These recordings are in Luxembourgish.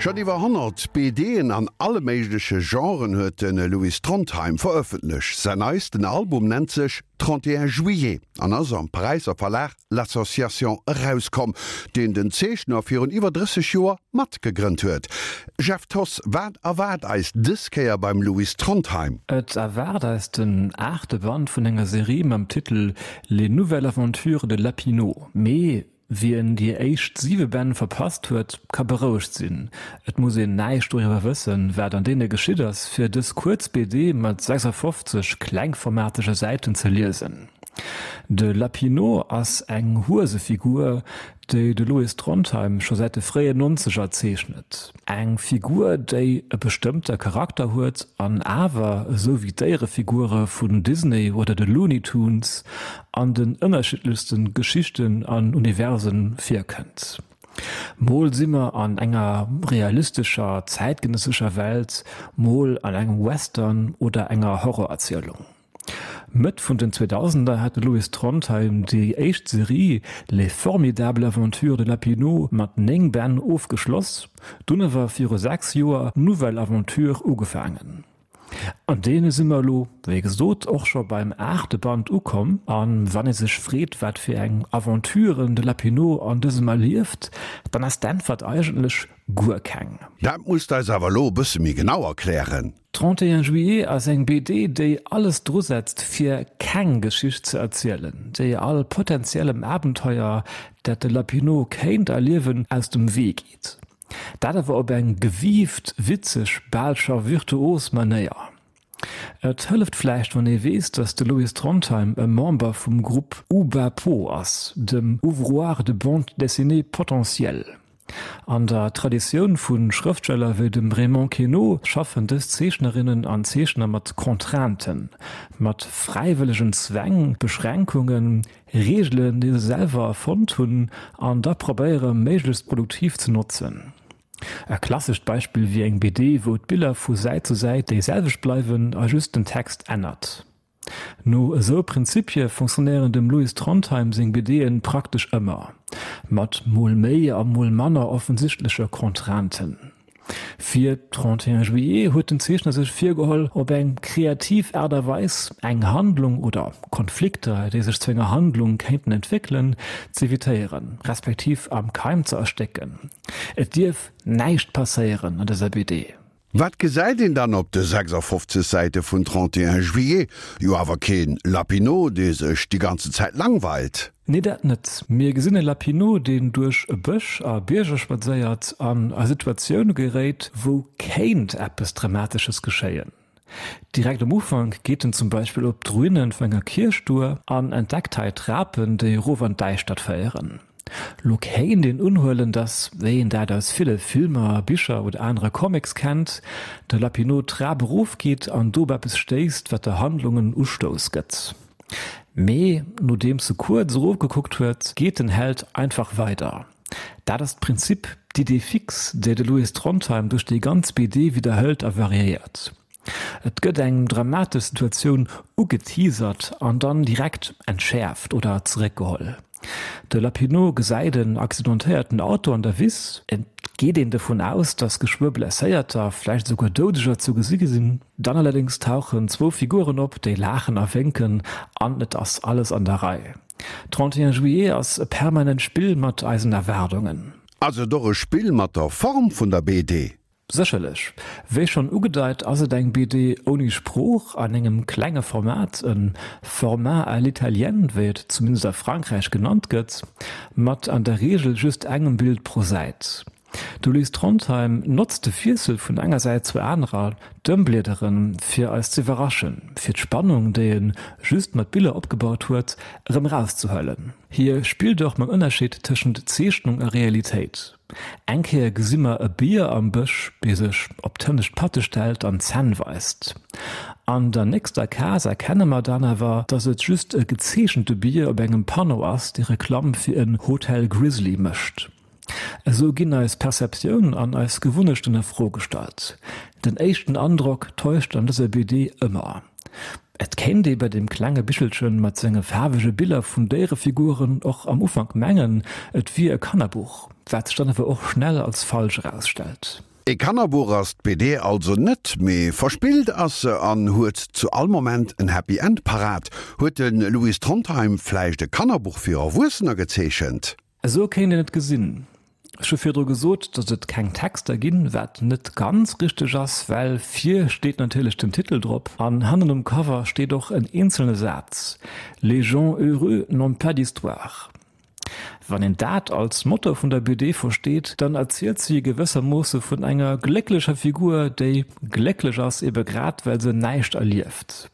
Schonn iwwer 100 BDen an alle méigleche Genren huet de Louis Trondheim verëffentlecht. Säin neisten Album nennt sech 31 Juillet an ass am Paräisser Verlag L'Association erauskomm, deen den Zeechner virun iwwer 30 Joer mat gegrënnt huet. Jeff Thoss, wat erwaart eis dës Kéier beim Louis Trondheim? Et erwaart eis den aachte Band vun enger Serie mam Titel Les nouvelles aventures de Lapinot. Mee Wien déi éischt siwe Bänn verpasst huet, ka berouegt sinn, et muss een näischt doriwwer wëssen, wat an deene geschitt ass, fir dës kuerz BD mat 56 klengformatege Säiten ze liesen. De Lapinot ass eng Huesefigur, déi de Louis Trondheim scho säit de fréien Nonzeger zeechnet. Eng Figur, déi e bestëmmte Charakter huet an awer, esou wéi d'Déierefigure vun Disney oder de Looney Tunes, an den ënnerschiddlechste Geschichten an Universe virkënnt. Mol si mer an enger realistescher, zäitgenëssescher Welt, mol an engem Western oder enger Horrorerzielung. Mëtt vun den Zweedausender hat de Louis Trondheim déi éischt Serie Les formidables aventures de Lapinot mat 9 Bänn ofgeschloss, dunn awer viru 6 Joer Nouvelle Aventure ugefaangen. An deene si mer elo, wéi gesot, och scho beim aachte Band ukomm. A wann ee sech freet, wat fir eng Aventuren de Lapinot an dësem erlieft, dann ass d'Äntwert eigentlech guer keng. Dat muss d'eis awer elo e bësse méi genau erklären. 31 Juillet ass eng BD, déi alles drusetzt, fir keng Geschicht ze erzielen, déi all potentiellem Abenteuer, dat de Lapinot kéint erliewen, aus dem Wee geet. Dat awer op eng gewiift, witzeg, bal scho virtuos Manéier. Et hëlleft vläicht, wann ee weess, datt de Louis Trondheim e Member vum Grupp Oubapo ass, dem Ouvroir de bande dessinée potentiel. An der Traditioun vu Schrëftsteller wéi dem Raymond Queneau schaffen dës Zeechnerinnen an Zeechner mat Contrainten, mat fräiwëllegen Zwäng, Beschränkungen, Reegelen, déi se selwer erfonnt hunn an da probéiere méiglechst produktiv ze notzen. E klassescht Beispill wier eng BD, wou d'Biller vu Säit zu Säit déi selwecht bleiwen a just den Text ännert. No esou Prinzipie fonctionnéieren dem Louis Trondheim seng BD'en praktesch ëmmer, mat mol méi a mol manner offensichtleche Contrainten. Fir 31 Juillet huet den Zeechner sech virgeholl, op eng kreativ Aart a Weis eng Handlung oder Konflikter, déi sech zu enger Handlung kéinten entwéckelen, z'evitéieren, respektiv am Keim ze erstécken. Et dierf näischt passéieren an dëser BD. Wat gesäit een dann op de 56 Säite vun 31 Juillet? Jo awer keen Lapinot, dee sech déi ganze Zäit langweilt. Nee dat net. Mir gesinn e Lapinot, deen duerch e Bësch a Bierger spadséiert an a Situatioune geréit, wou kéint eppes Dramatesches geschéien. Direkt am Ufank geet en zum Beispill op d'Ruine vun enger Kierch duer an entdeckt hei Trapen, déi erof an d'Däischtert féieren. Lo kéint een unhuelen, dass, wéi een dat aus ville Filmer, Bicher oder anere Comics kennt, de Lapinot d'Trap erofgeet an do op eppes stéisst, wat der Handlung en Ustouss gëtt. Mee nodeems e kuerz erofgekuckt huet, geet den Held einfach weider. Dat ass d'Prinzip, d'Idée fixe, déi de Louis Trondheim duerch déi ganz BD widderhëlt a variéiert. Et gëtt eng dramatesch Situatioun ugeteasert an dann direkt entschäerft oder zeréckgeholl. De Lapinot gesäit en accidentéierten Auto an der Wiss. Et geet een dovun aus, datt geschwë Blesséierter, vläicht esouguer Doudeger zu gesi sinn. Dann allerdéngs tauchen zwou Figuren op, déi laachen a wénken an et ass alles an der Rei. 31 Juillet ass e permanent Spill mat eisen Erwaardungen. Ass et och e Spill mat der Form vun der BD? Sécherlech. Wéi schonn ugedeit ass et eng BD ouni Sprooch, an engem klenge Format, e Format à l'italienne, wéi et zumindest a Frankräich genannt gëtt, mat an der Reegel just engem Bild pro Säit. De Louis Trondheim notzt de Wiessel vun enger Säit zur anerer, d'Ëmbliederen, fir eis z'iwwerraschen, fir d'Spannung, déi e just mat Biller opgebaut huet, erëm erauszehuelen. Hie spillt och mam Ënnerscheed tëschent Zeechnung a Realitéit. Eng Kéier gesi mer e Bier am Bësch, dee sech op d'hënnescht Patte stellt an d'Zänn weist. An der nächster Case erkenne mer dann awer, dass et just e gezeechente Bier op engem Panneau ass, dee Reklamm fir en Hotel Grizzly mécht. Esou ginn eis Perceptioun an eis Gewunnechten a Fro gestallt. Den éischten Androck täuscht an dëser BD ëmmer. Et kéint ee bei deem klenge Bichelchen mat senge faarwege Biller vun Déierefiguren och am Ufank mengen, et wier e Kannerbuch, wat sech dann awer och schnell als falsch erausstellt. E Kannerbuch ass d'BD also net, mee verspillt ass se an huet zu all Moment en Happy End parat. Huet de Louis Trondheim vläicht e Kannerbuch fir Erwuessener gezeechent? Esou kéint een et gesinn. Ech hu virdru gesot, datt et keng Texter ginn, wat net ganz richteg ass, well vir steet natierlech den Titel drop an hannen um Cover steet och en eenzelne Saz, Les gens heureux n'ont pas d'histoire. Wann een dat als Motto vun der BD versteet, dann erzielt si gewëssermoosse vun enger glécklecher Figur, déi glécklech ass, ebe grad well se näischt erlieft.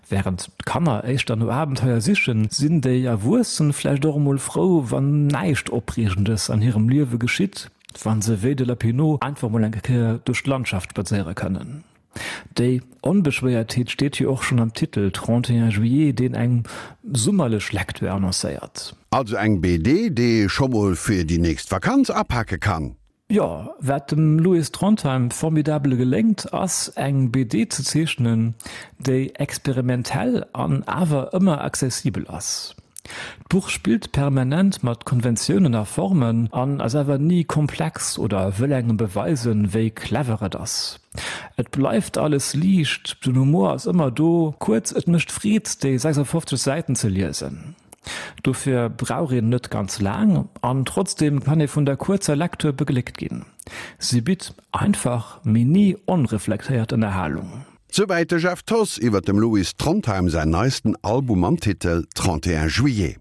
Wärend d'Kanner éischter no Abenteuer sichen, sinn déi Erwuessen vläicht och emol frou, wann näischt Opreegendes an hirem Liewe geschitt, wa se wéi de Lapinot einfach mol eng Kéier duerch d'Landschaft spadséiere kënnen. Déi Onbeschwéiertheet steet jo och schonn am Titel 31 juillet, deen eng summerlech Lecture annoncéiert. Also eng BD, déi ee scho mol fir déi nächst Vakanz apake kann. Jo, wat dem Louis Trondheim formidabel geléngt, ass eng BD ze zeechnen, déi experimentell an awer ëmmer accessibel ass. D'Buch spillt permanent mat Konventiounen a Formen an ass awer ni komplex oder wëll engem beweisen, wéi clever et ass. Et bleift alles liicht, den Humor ass ëmmer do, kuerz, et mécht Freed, déi 56 Säiten ze liesen. Dofir brauch een net ganz laang an trotzdeem kann ee vun der kuerzer Lecture begléckt ginn. Si bitt einfach, mee ni onreflektéiert Ënnerhalung. Souwäit de Jeff Thoss iwwer dem Louis Trondheim säin neisten Album mam Titel 31 Juillet.